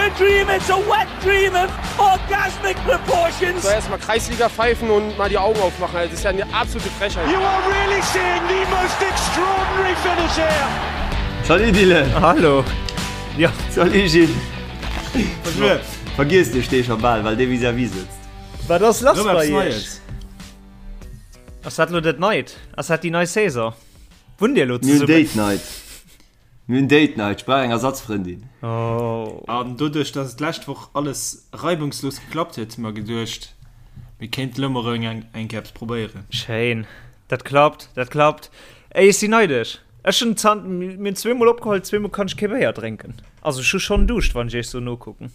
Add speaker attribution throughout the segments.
Speaker 1: a dream, it's a wet dream of orgasmic proportions.
Speaker 2: So erstmal Kreisliga pfeifen und mal die Augen aufmachen. Das ist ja eine absolute Frechheit.
Speaker 1: You are really seeing the most extraordinary finish here.
Speaker 3: Salut Dylan!
Speaker 4: Hallo!
Speaker 3: Ja. Salut Gilles! Vergiess dech dee scho bal, well dee vis-à-vis sëtzt.
Speaker 4: Wat ass lass
Speaker 5: Rëm
Speaker 4: bei
Speaker 5: eppes
Speaker 4: iech?
Speaker 5: Neies.
Speaker 4: Ass dat lo dat Neit? Ass dat déi nei Saison? Wunnt dir elo
Speaker 3: Mir hunn
Speaker 4: zesummen?
Speaker 3: Date Night. Mir hunn Date Night, ech brauch eng Ersatzfrëndin.
Speaker 4: Oh.
Speaker 5: An doduerch, dass et d'lescht Woch alles reibungslos geklappt huet, hu mer geduecht, mir kéinten elo mol erëm eng eng Kéier eppes probéieren.
Speaker 4: Schéin. Dat klappt, dat klappt. Ey, ech sinn neidesch. Ech hunn zan-, mir hunn zweemol opgeholl, zweemol kann ech kee Béier drénken. Also ech hu schonn Duuscht, wann ech iech sou nokucken.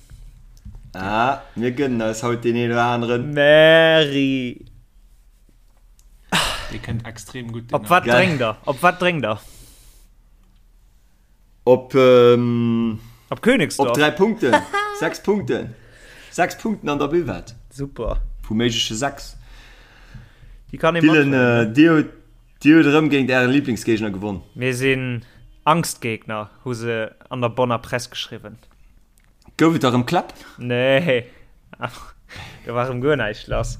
Speaker 3: Ah, mir gënnen eis haut deen een oder aneren.
Speaker 4: Merri.
Speaker 5: Dee kënnt extrem gutt, deen
Speaker 4: Op wat
Speaker 3: Geil.
Speaker 4: drénkt der? Op wat drénkt der?
Speaker 3: Op, ähm,
Speaker 4: Op Königsdorf?
Speaker 3: op 3 Punkten. 6 Punkten. 6 Punkten an der Buvette.
Speaker 4: Super.
Speaker 3: Vu méigleche 6.
Speaker 4: Déi kann ee
Speaker 3: Dylan,
Speaker 4: mathuelen, ne?
Speaker 3: äh, dir hutt, dir hutt erëm géint ären Lieblingsgéigner gewonn.
Speaker 4: Mir sinn Angstgegner, hu se an der Bonner Press geschriwwen.
Speaker 3: Gouf et da rëm Kläpp?
Speaker 4: Nee, do war rëm guer näischt lass.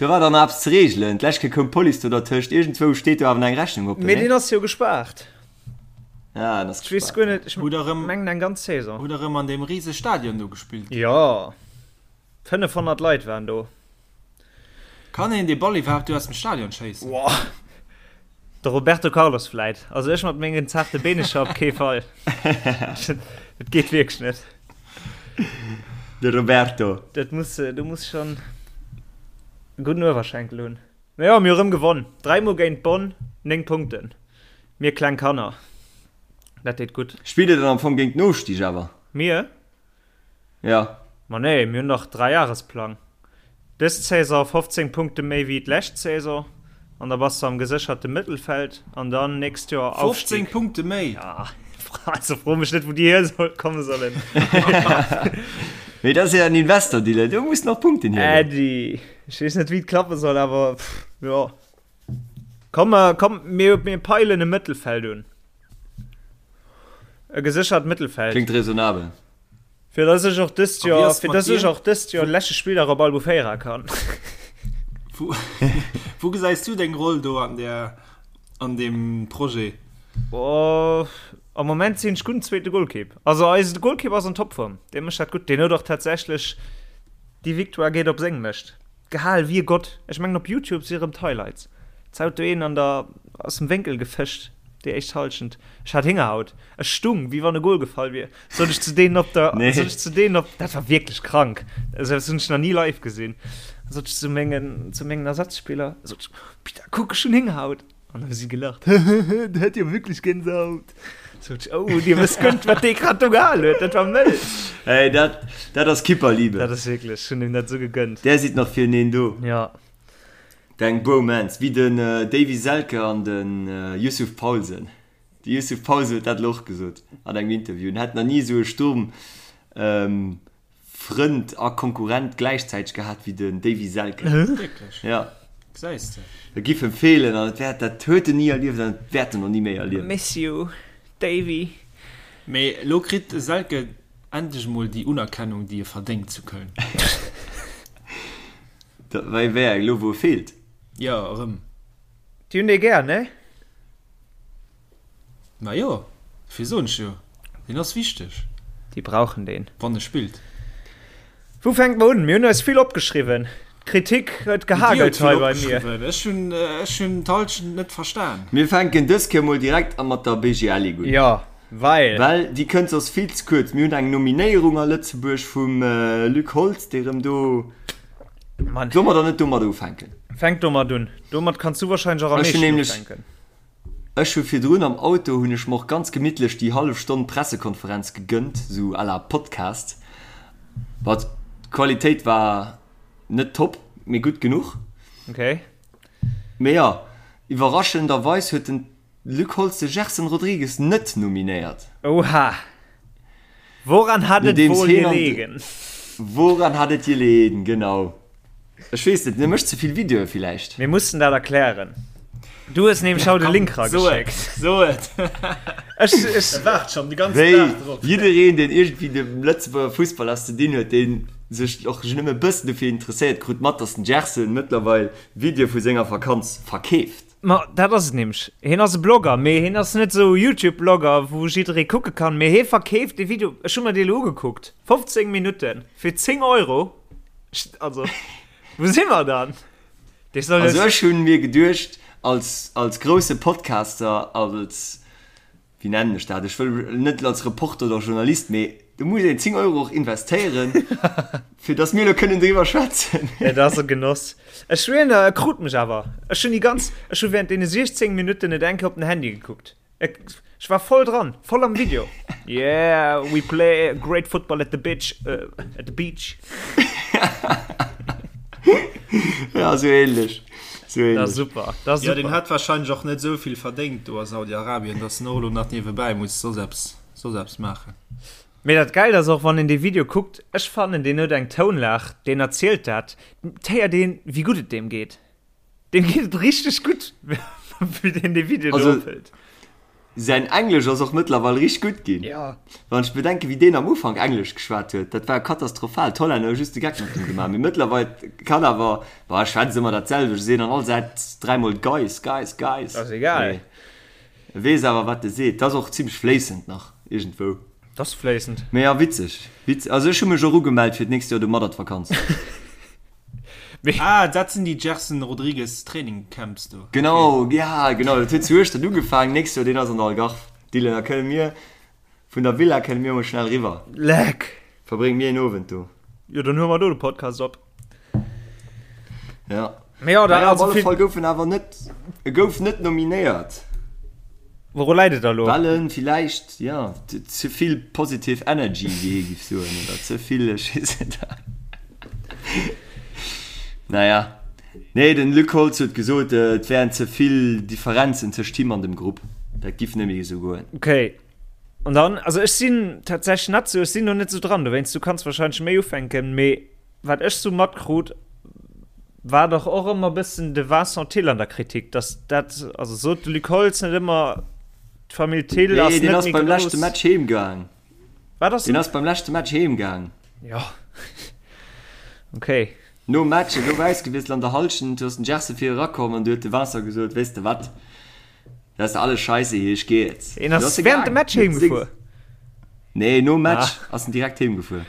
Speaker 3: Do war dann nach eppes ze reegelen. D'lescht Kéier koum d'Police do dertëscht. Iergendzwou steet do awer nach eng Rechnung oppen,
Speaker 4: Mee deen
Speaker 3: nee?
Speaker 4: ass jo gespaart.
Speaker 3: Ah, en ass
Speaker 4: Ech weess
Speaker 3: gespaart,
Speaker 4: guer
Speaker 3: ja.
Speaker 4: net, ech
Speaker 5: Hutt der rëm,
Speaker 4: mengen eng ganz Saison.
Speaker 5: hutt der rëm an deem rise Stadion do gespillt?
Speaker 4: Jo, 500 Leit waren do.
Speaker 5: Kann een dee Ball iwwerhaapt do aus dem Stadion schéissen?
Speaker 4: Woah. De Roberto Carlos vläit. Also ech mat mengen zaarte Beenecher op kee Fall. Dat geet wierklech net.
Speaker 3: De Roberto.
Speaker 4: Dat muss, du muss schon e gudden Uewerschenkel hunn. Mee jo, mir hu rëm gewonn. Dräimol géint Bonn, 9 Punkten. Mir kleng Kanner. Dat deet gutt.
Speaker 3: Spillt Dir dann am Fong géint den Ofstig awer?
Speaker 4: Mir?
Speaker 3: Ja.
Speaker 4: Ma nee, mir hunn dach Dräijahresplang. Dës Saison 15 Punkte méi wéi d'lescht Saison an da bass de am gesécherte Mëttelfeld an dann nächst Joer
Speaker 5: 15
Speaker 4: Aufstieg.
Speaker 5: Punkte méi?
Speaker 4: Ja, also fro mech net wou déi hier soll komme sollen.
Speaker 3: Mee dat ass jo en Investor, Dylan, do muss nach Punkten hiergoen.
Speaker 4: Äddi, ech weess net wéi et klappe soll, awer pff, jo. Komm, komm mir, mir peilen e Mëttelfeld un. E geséchert Mëttelfeld.
Speaker 3: Kléngt raisonnabel.
Speaker 4: Fir dass ech och dëst
Speaker 5: A wéi
Speaker 4: Joer,
Speaker 5: ass
Speaker 4: fir
Speaker 5: mat
Speaker 4: dass ech
Speaker 5: dir?
Speaker 4: och dëst Joer de leschte Spilldag op Albufeira kann.
Speaker 5: Wou, wou gesäis du deng Roll do an der, an deem Projet?
Speaker 4: Oh, am Moment sinn ech gudden zweete Golkipp. Also eise Golkipp ass an Topform. Dee mécht dat gutt. Deen huet och tatsächlech déi Victoire geet op seng Mëscht. Gehal wéi e Gott. Ech mengen op Youtube si rëm d'Highlights. Zaut do een an der aus dem Wénkel gefëscht déi éischt Halschent. Ech hat Héngerhaut. Ech stung wéi wann e Gol gefall wier. Sot ech zu deenen op der
Speaker 3: Nee.
Speaker 4: sot ech zu deenen op dat war wierklech krank. Esou eppes hunn ech nach ni live gesinn. Sot ech zu mengen zu mengen Ersatzspiller sot ech, Peter kuck ech hunn Héngerhaut. An da hu si gelacht, Hehehe, der hat jo wierklech Gänsehaut. Sot ech, Oh, dir wësst guer net wat dee grad do gehal huet, dat war mëll.
Speaker 3: Hey, dat dat ass Kipperliebe.
Speaker 4: Dat ass wierklech, ech hunn him dat esou gegënnt.
Speaker 3: Där sidd nach fireneen do.
Speaker 4: Ja.
Speaker 3: Deng Bromance, wéi den Davy Selke an den Yussuf Poulsen. De Yussuf Poulsen huet dat elo och gesot an engem Interview, en hätt nach ni esou e Sturm Frënd a Konkurrent gläichzäiteg gehat wéi den Davy Selke.
Speaker 5: Wierklech?
Speaker 3: Ja.
Speaker 5: Gesäis de.
Speaker 3: E giff em feelen an et wäert, dat huet en ni erlieft an et wäert en och ni méi erliewen.
Speaker 4: Miss you, Davy.
Speaker 5: Mee elo kritt de Selke endlech emol déi Unerkennung, déi e verdéngt zu Köln.
Speaker 3: Wéi wéi eng? Elo wou e feelt?
Speaker 5: Jo, erëm.
Speaker 4: Déi hunn dee gär, ne?
Speaker 5: Ma jo, dofir soen ech jo, deen ass wichteg.
Speaker 4: Déi brauchen deen.
Speaker 5: Wann e spillt.
Speaker 4: Wou fänke mer un? Mir hunn eis vill opgeschriwwen. D'Kritik huet gehagelt hei bei mir.
Speaker 5: Ech hunn ech hunn d'Halschent net verstan.
Speaker 3: Mir fänken dës Kéier mol direkt a mat der BGL Ligue un.
Speaker 4: Jo, well.
Speaker 3: Well déi kënnt soss vill ze kuerz. Mir hunn eng Nominéierung a Lëtzebuerg vum Luc Holtz, dee rëm do.
Speaker 4: Mann.
Speaker 3: Solle mer dann net domadder ufänken?
Speaker 4: Fänk domat un. Domat kanns du wahrscheinlech och am
Speaker 3: Ech hunn
Speaker 4: meeschten
Speaker 3: nämlech.
Speaker 4: ufänken.
Speaker 3: Ech hu virdrun am Auto hunn ech mer och ganz gemittlech déi hallef Stonn Pressekonferenz gegënnt, sou à la Podcast. Bon, d'Qualitéit war net top, mee gutt genuch.
Speaker 4: Okay.
Speaker 3: Mee jo, iwwerraschenderweis huet den Luc Holtz de Gerson Rodrigues net nominéiert.
Speaker 4: Oha! Woran hat et
Speaker 3: Nodeems
Speaker 4: wohl
Speaker 3: heen an
Speaker 4: gelegen?
Speaker 3: Woran hat et gelegen, genau. Ech weess net, en mécht ze vill Videoe villäicht.
Speaker 4: Mir mussen dat erklären. Du hues nämlech haut e Link rageschéckt.
Speaker 5: So et.
Speaker 4: Ech, ech.
Speaker 5: E waart schonn de ganzen
Speaker 3: Wéi
Speaker 5: Dag drop.
Speaker 3: jiddereen, deen iergendwéi dem Lëtzebuerger Fussball eppes ze dinn huet, deen sech och nëmme e bëssen dofir interesséiert, krut mat, dass den Gerson mëttlerweil Videoe vu senger Vakanz verkeeft.
Speaker 4: Ma dat ass et nämlech. Hien ass e Blogger, mee hien ass net esou e Youtube-Blogger, wou jidderee kucke kann, mee hie verkeeft dee Video. Ech hu mer dee elo ugekuckt, 15 Minutten fir 10 Euro. Also, wou si mer dann? Dee soll
Speaker 3: Also ech hunn mir geduecht, als, als grousse Podcaster, als, wéi nennen ech dat, ech wëll net als Reporter oder Journalist, mee do muss een 10 Euro och investéieren, fir datt mir elo kënnen driwwer schwätzen.
Speaker 4: Et ass e Genoss. Ech schwéieren der, e krut mech awer. Ech hunn déi ganz, ech hu während deene 16 Minutten net eng Kéier op den Handy gekuckt. Ech war voll dran, voll am Video. Yeah, we play great football at the bitch, uh, at the beach.
Speaker 3: ja, so ähnlich. So ähnlich.
Speaker 4: Das super. Das
Speaker 5: ja,
Speaker 4: super.
Speaker 5: den hat wahrscheinlich och net souvill verdéngt do a Saudi-Arabien, dass en och elo nach niewebäi muss soss eppes, soss eppes maachen.
Speaker 4: Mee dat Geilt ass och, wann een dee Video kuckt, ech fannen, deen huet eng Tounlag, deen erzielt dat, d'héiert een, wéi gutt et deem geet. Deem geet et richteg gutt, wéi deen dee Video do
Speaker 3: Also,
Speaker 4: ophëlt.
Speaker 3: säin Englesch ass och mëttlerweil richteg gutt ginn.
Speaker 4: Ja.
Speaker 3: Wann ech bedenken, wéi deen am Ufank Englesch geschwat huet, dat war katastrophal. D'Hollänner hu just de Geck mat him gemaach. Mee mëttlerweil kann awer, bah, e schwätzt ëmmer dat selwecht, e seet an all Sätz dräimol guys, guys, guys.
Speaker 4: Ass egal.
Speaker 3: Mee e weess awer, wat e seet. Dat ass och zimmlech fléissend nach iergendwou.
Speaker 4: Dat ass fléissend.
Speaker 3: Mee ja, witzeg. Witzeg. Also ech hu mech och ugemellt fir d'nächst Joer do mat an d'Vakanz.
Speaker 5: Ah, dat sinn déi Gerson Rodrigues Training Camps do.
Speaker 3: Genau, ja genau, dat huet zu Hueschtert ugefaangen, nächst Joer deen ass an der Algarve. Dylan, da kënne mir vun der Villa kënne mir mol schnell riwwer.
Speaker 4: Leck!
Speaker 3: Verbrénge mir een Owend do.
Speaker 4: Jo, dann huele mer do de Podcast op.
Speaker 3: Ja.
Speaker 4: Mee jo, da
Speaker 3: Naja, op
Speaker 4: also
Speaker 3: alle
Speaker 4: vill.
Speaker 3: Fall gouf en awer net, e gouf net nominéiert.
Speaker 4: Wouru läit et da lo?
Speaker 3: Well en villäicht, jo, ze vill positive energy, wéi hie giff soen, oder ze vill, ech weess net. Naja, nee, den Luc Holtz huet gesot, et wären ze vill Differenzen tëscht him an dem Grupp. Dat giff net méi esou goen.
Speaker 4: Okay. An dann, also ech sinn tatsächlech net sou, ech sinn do net sou dran, dowéinst, du kanns wahrscheinlech méi ufänken, mee wat ech sou matkrut, war dach och ëmmer bëssen de Vincent Thill an der Kritik, dass dat, also sot de Luc Holtz net ëmmer, d'Famill Thill
Speaker 3: Nee,
Speaker 4: ass
Speaker 3: deen
Speaker 4: net
Speaker 3: ass
Speaker 4: méi
Speaker 3: beim leschte
Speaker 4: grouss.
Speaker 3: Match heem gaang.
Speaker 4: Wat ass
Speaker 3: Deen
Speaker 4: en?
Speaker 3: ass beim leschte Match heem gaang.
Speaker 4: Jo. Okay.
Speaker 3: Nom Match, e gouf ausgewiesselt an der Hallschent, du ass den Gerson vir erakomm an du huet de Vincent gesot, weess de wat, dat ass alles Scheisse hier, ech geh jetzt.
Speaker 4: Een
Speaker 3: Du
Speaker 4: ass
Speaker 3: ass e
Speaker 4: während dem
Speaker 3: gaang.
Speaker 4: Match heem gefuer?
Speaker 3: Nee, nom Match
Speaker 4: Ah.
Speaker 3: ass en direkt heem gefuer.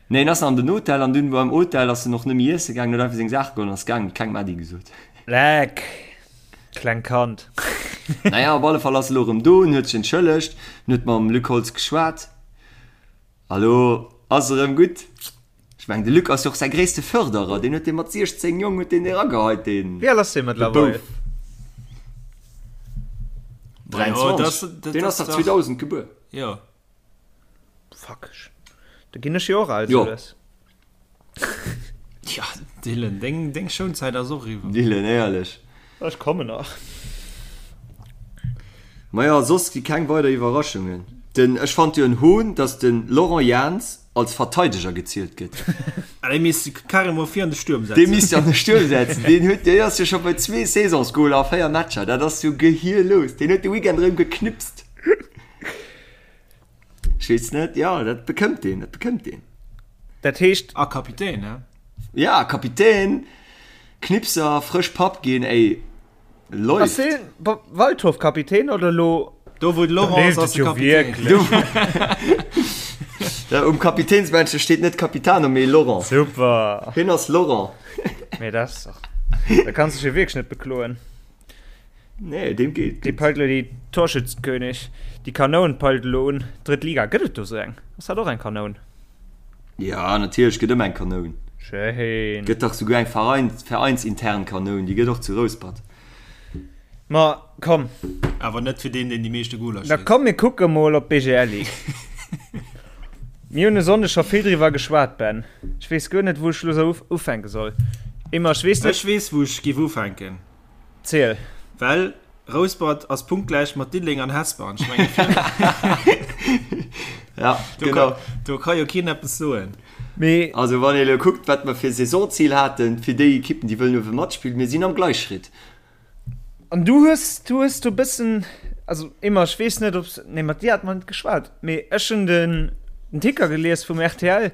Speaker 3: Nee, en ass an den Hotel an dunn beim Hotel ass en och net méi iesse gaangen, huet einfach seng Saache geholl an ass gaangen, huet kengem Äddi gesot.
Speaker 4: Leck. Kleng Kand.
Speaker 3: Naja, op alle Fall ass e lo erëm do, en huet sech entschëllegt, en huet mam Luc Holtz geschwat a lo ass erëm gutt. Ech mengen, de Luc ass jo och säi gréisste Fërderer, deen huet dee mat 16, Jong, huet deen dee erageheit, deen,
Speaker 4: Wéi al ass dee
Speaker 3: de
Speaker 4: mëttlerweil?
Speaker 3: Bouf. 23, deen ass dach 2000 gebuer.
Speaker 5: Jo.
Speaker 4: Fuck, da ginn ech jo och al
Speaker 3: Jo.
Speaker 4: sou lues.
Speaker 5: Ja, Dylan, deng, deng Schounzäit ass och eriwwer.
Speaker 3: Dylan, éierlech.
Speaker 4: Ech kommen nach.
Speaker 3: Maja, soss gi keng weider Iwwerraschungen. Den, ech fand jo en Hohn, dass den Laurent Jans als Verteideger gezielt gëtt.
Speaker 5: Ah, dee misst de carrément vir an de Stuerm
Speaker 3: Dee
Speaker 5: setzen.
Speaker 3: misst de an de Stuerm setzen. Deen huet, deen ass jo scho bei zwee Saisonsgoler a 4 Matcher. Dat ass jo gehirlos. Deen huet de Weekend erëm geknipst. Ech weess net, jo, dat bekëmmt deen, dat bekëmmt deen.
Speaker 4: Dat heescht.
Speaker 5: A Kapitän, ne?
Speaker 3: Ja, Kapitän, Knipser, frësch Papp ginn, ey,
Speaker 4: Ass
Speaker 3: läuft.
Speaker 4: deen Waldhof Kapitän oder elo?
Speaker 5: Do wou de Laurent ass, ass de Kapitän.
Speaker 3: Ja, um Kapitänsbändche steet net Capitano, mee Laurent.
Speaker 4: Super.
Speaker 3: Hien ass Laurent.
Speaker 4: Mee dat ass dach, da kanns dech jo wierklech net bekloen.
Speaker 3: Nee, deem geet
Speaker 4: Dee
Speaker 3: gutt.
Speaker 4: peilt elo déi Torschützenkönig, déi Kanoun peilt elo un. Drëtt Liga, gëtt et do sou eng? Ass dat och eng Kanoun?
Speaker 3: Ja, natierlech gëtt ëmmer eng Kanoun.
Speaker 4: Schéin.
Speaker 3: Gëtt dach souguer eng Verein, veräinsintern Kanoun, déi gëtt och zu Rouspert.
Speaker 4: Ma komm.
Speaker 5: Awer net fir deen, deen déi meeschte Goler
Speaker 4: Da
Speaker 5: schéisst.
Speaker 4: komm mir kucke mol op d'BGL Ligue. Mir hunn e Sonndeg scho vill driwwer geschwat, Ben. Ech weess guer net, wou ech elo sou ufänke soll. Emma, ech weess net.
Speaker 5: Ech weess, wou ech géif ufänken.
Speaker 4: Ziel.
Speaker 5: Well Rouspert ass punktgläich mat Diddeleng an Hesper an ech mengen
Speaker 3: Ja,
Speaker 5: do
Speaker 3: genau.
Speaker 5: ka, do ka jo keen eppes soen.
Speaker 4: Mee.
Speaker 3: Also wann ee elo kuckt, wat mer fir Saisonzil haten, fir déi Ekippen, déi wëllen uewe matspillen, mir sinn am Gleichschritt.
Speaker 4: An du hues, du hues do bëssen, also Emma, ech weess net, ob, nee, mat dir hat mer net geschwat, mee ech hunn den, den Ticker gelies vum rtl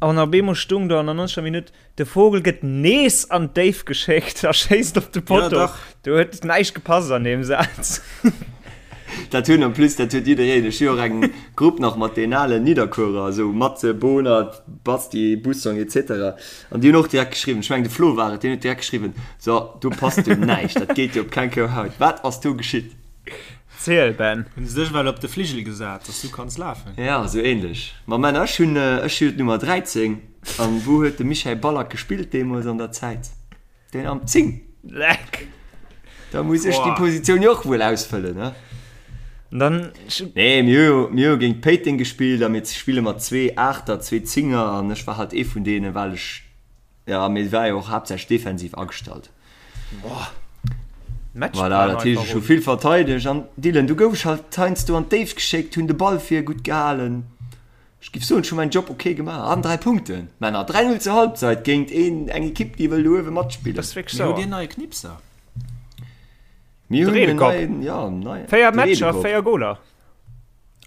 Speaker 4: an op eemol stung do an der 90. Minutt, de Vogel gëtt nees an d'Déif geschéckt a schéisst op de Potto.
Speaker 5: Ja, dach.
Speaker 4: Do huet näischt gepasst an deem Saz.
Speaker 3: Dat hunn en plus, dat huet jiddereen. Ech hu jo och eng Grupp nach mat den alen Nidderkuerer, esou Matze, Bohnert, Basti, Bussong etc. An déi hunn och direkt geschriwwen, ech mengen de Flo war et, deen huet direkt geschriwwen, So, do passt jo näischt, dat geet jo op keng Kou Haut. Wat ass do geschitt?
Speaker 4: Ziel, Ben.
Speaker 5: Hunn se dech well op de Fligel gesat, dass du kanns lafen?
Speaker 3: Ja, esou ähnlech. Ma Männer, ech hunn, ech hu jo d'Nummer 13. An wou huet de Michael Ballack gespillt deemools an der Zäit? Den am 10.
Speaker 4: Leck.
Speaker 3: Da muss ech déi Positioun jo och wuel ausfëllen, ne?
Speaker 4: Dann.
Speaker 3: Nee, mir hu jo, mir hu géint Péiteng gespillt a mir spille mat zwee Aachter, zwee Zinger an ech war halt ee vun deenen, well ech, ja, mee war jo och haaptsächlech defensiv agestallt.
Speaker 4: Boah.
Speaker 3: Voilà, dat heescht, ech hu vill verteidegt an Dylan, du gouf ech halt heiansdo an d'Déift geschéckt, hunn de Ball vir gutt gehalen. Ech giff soen, ech hu mäin Job ok gemaach. An 3 Punkten, Männer. 3, 0 zur Halbzeit géint een, eng Ekipp, déi wëll do uewe matspillen.
Speaker 4: Dat ass wierklech
Speaker 5: Mir
Speaker 4: sauer.
Speaker 5: hutt een neie Knipser.
Speaker 3: Mir
Speaker 4: De
Speaker 3: hunn en
Speaker 4: Redekopp.
Speaker 3: neien, ja, en neien.
Speaker 4: 4
Speaker 3: De
Speaker 4: Matcher,
Speaker 3: Redekopp.
Speaker 4: 4 Goler.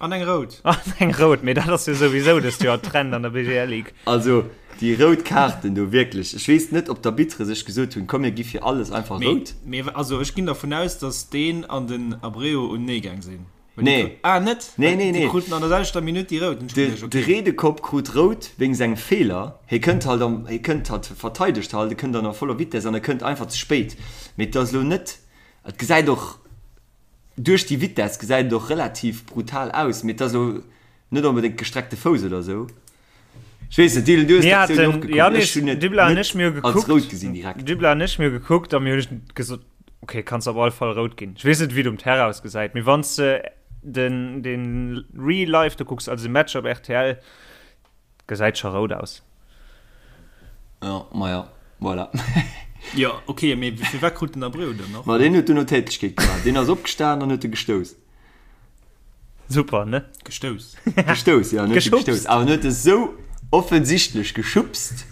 Speaker 5: An eng rout.
Speaker 4: An eng rout, mee dat ass jo souwisou dëst Joer Trend an der BGL Ligue.
Speaker 3: Also, déi rout Kaarten do, wierklech. Ech weess net, ob d'Arbitere sech gesot hunn, komm mir gi fir alles einfach
Speaker 5: Mee,
Speaker 3: rout.
Speaker 5: mee also ech ginn dervun aus, datt deen an den Abreu unenee gaang sinn.
Speaker 3: Nee.
Speaker 5: Ah, net?
Speaker 3: Nee, nee, nee.
Speaker 5: Déi kruten an der selwechter Minutt déi rout.
Speaker 3: De, de Redekopp krut rout wéinst engem Feeler. Hie kënnt halt am, hie kënnt halt, verteidegt halt, e kënnt an a voller Vitess an e kënnt einfach ze spéit. Mee et ass elo net, et gesäit och, duerch déi Vitess gesäit et och relativ brutal aus, mee et ass elo net onbedéngt gestreckte Fouss oder esou. Ech weess net, Dylan, du hues
Speaker 4: Mir
Speaker 3: d'Aktioun jo och
Speaker 4: haten,
Speaker 3: gekuckt.
Speaker 4: Yannis,
Speaker 3: Ech hunn et
Speaker 4: Dybla an
Speaker 3: net
Speaker 4: ech, mir hu
Speaker 3: als
Speaker 4: gekuckt,
Speaker 3: rout gesinn direkt.
Speaker 4: Dybla an ech, mir hu gekuckt a mir hunn gesot, ok, kanns op alle Fall rout ginn. Ech weess net, wéi et um Terrain ausgesäit, mee wann s de den, den Real Life do kucks, also de Match op rtl, gesäit scho rout aus.
Speaker 3: Ja, maja, voilà.
Speaker 5: Jo, ok, mee firwat krut den Abreu dann och?
Speaker 3: Ma deen huet duerno Tätlechkeet gemaach. Deen ass opgestan an huet e gestouss.
Speaker 4: Super, ne?
Speaker 5: Gestouss.
Speaker 3: Gestouss, ja, net
Speaker 4: Geschubst.
Speaker 3: gestouss. Awer net esou offensichtlech geschubst,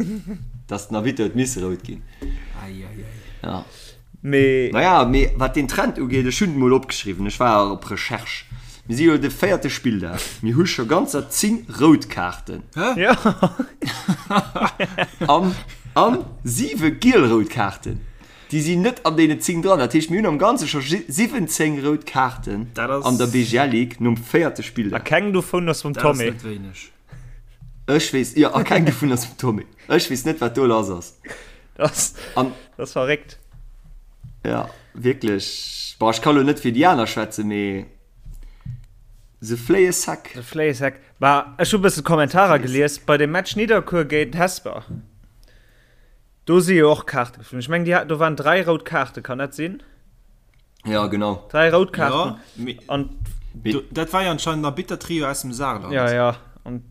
Speaker 3: dass den Arbitter huet misse rout ginn.
Speaker 5: Ei, ei, ei.
Speaker 3: Ja.
Speaker 4: Mee.
Speaker 3: Naja, mee wat den Trend ugeet, ech hunn et mol opgeschriwwen, ech war op Recherche. Mir si jo de véierte Spilldag, mir hu scho ganzer 10 rout Kaarten.
Speaker 5: Hä?
Speaker 4: Ja.
Speaker 3: An, an siwe giel-rout Kaarten. Déi sinn net an deenen 10 dran. Dat heescht, mir hunn am Ganze scho 17 rout Kaarten an der BGL Ligue nom véierte
Speaker 4: A
Speaker 3: Spilldag.
Speaker 4: keng dovun ass vum
Speaker 5: Dat ass
Speaker 4: Tommy.
Speaker 5: net wéineg.
Speaker 3: Ech weess, jo, a keng dovun ass vum Tommy. Ech weess net, wat do lass ass.
Speaker 4: Dat ass,
Speaker 3: An,
Speaker 4: dat ass verréckt.
Speaker 3: ja, wierklech. Bon, ech ka lo net fir déi aner schwätzen, mee se fléie sec.
Speaker 4: Se fléie sec. Bah, ech hu bësse Kommentarer gelies bei dem Match Nidderkuer géint Hesper. Do si jo och Kaarte geflunn. Ech mengen, déi hat, do waren 3 rout Kaarte, kann dat sinn?
Speaker 3: Ja, genau.
Speaker 4: 3 rout Kaarten.
Speaker 5: Ja, mee
Speaker 4: An
Speaker 5: do, dat war jo anscheinend en Arbitter-Trio aus dem Saarland.
Speaker 4: ja, ja. An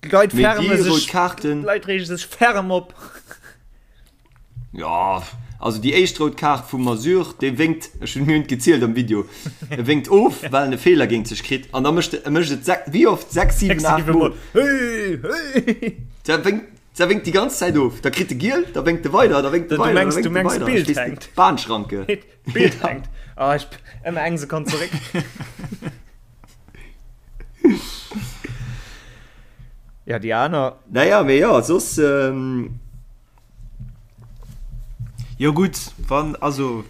Speaker 4: d'Leit
Speaker 3: Mee
Speaker 4: färme
Speaker 3: déi rout
Speaker 4: sech,
Speaker 3: Kaarten.
Speaker 4: d'Leit reege sech ferm op.
Speaker 3: Ja, also déi éischt rout Kaart vum Masur, dee wénkt, ech hunn, mir hunn et gezielt am Video, e wénkt of, well en e Feeler géint sech kritt an da mécht e, e mécht et sech, wéi oft? 6, 7, 8 Mol.
Speaker 4: Hey, hey.
Speaker 3: Da wénkt, Da wénkt déi ganz Zäit of. Da kritt e giel, da wénkt e weider, da wénkt e
Speaker 4: Du
Speaker 3: weider, da
Speaker 4: mengs,
Speaker 3: wénkt
Speaker 4: du
Speaker 3: e
Speaker 4: mengs
Speaker 3: weider.
Speaker 4: d'Bild
Speaker 3: Ech weess net,
Speaker 4: hänkt.
Speaker 3: Bahnschranke.
Speaker 4: D'Bild hänkt. Ah, ech ëmmer eng Sekonn zeréck. Ja, déi aner.
Speaker 3: Naja, mee jo, soss. Ähm,
Speaker 5: Jo gutt, wann, also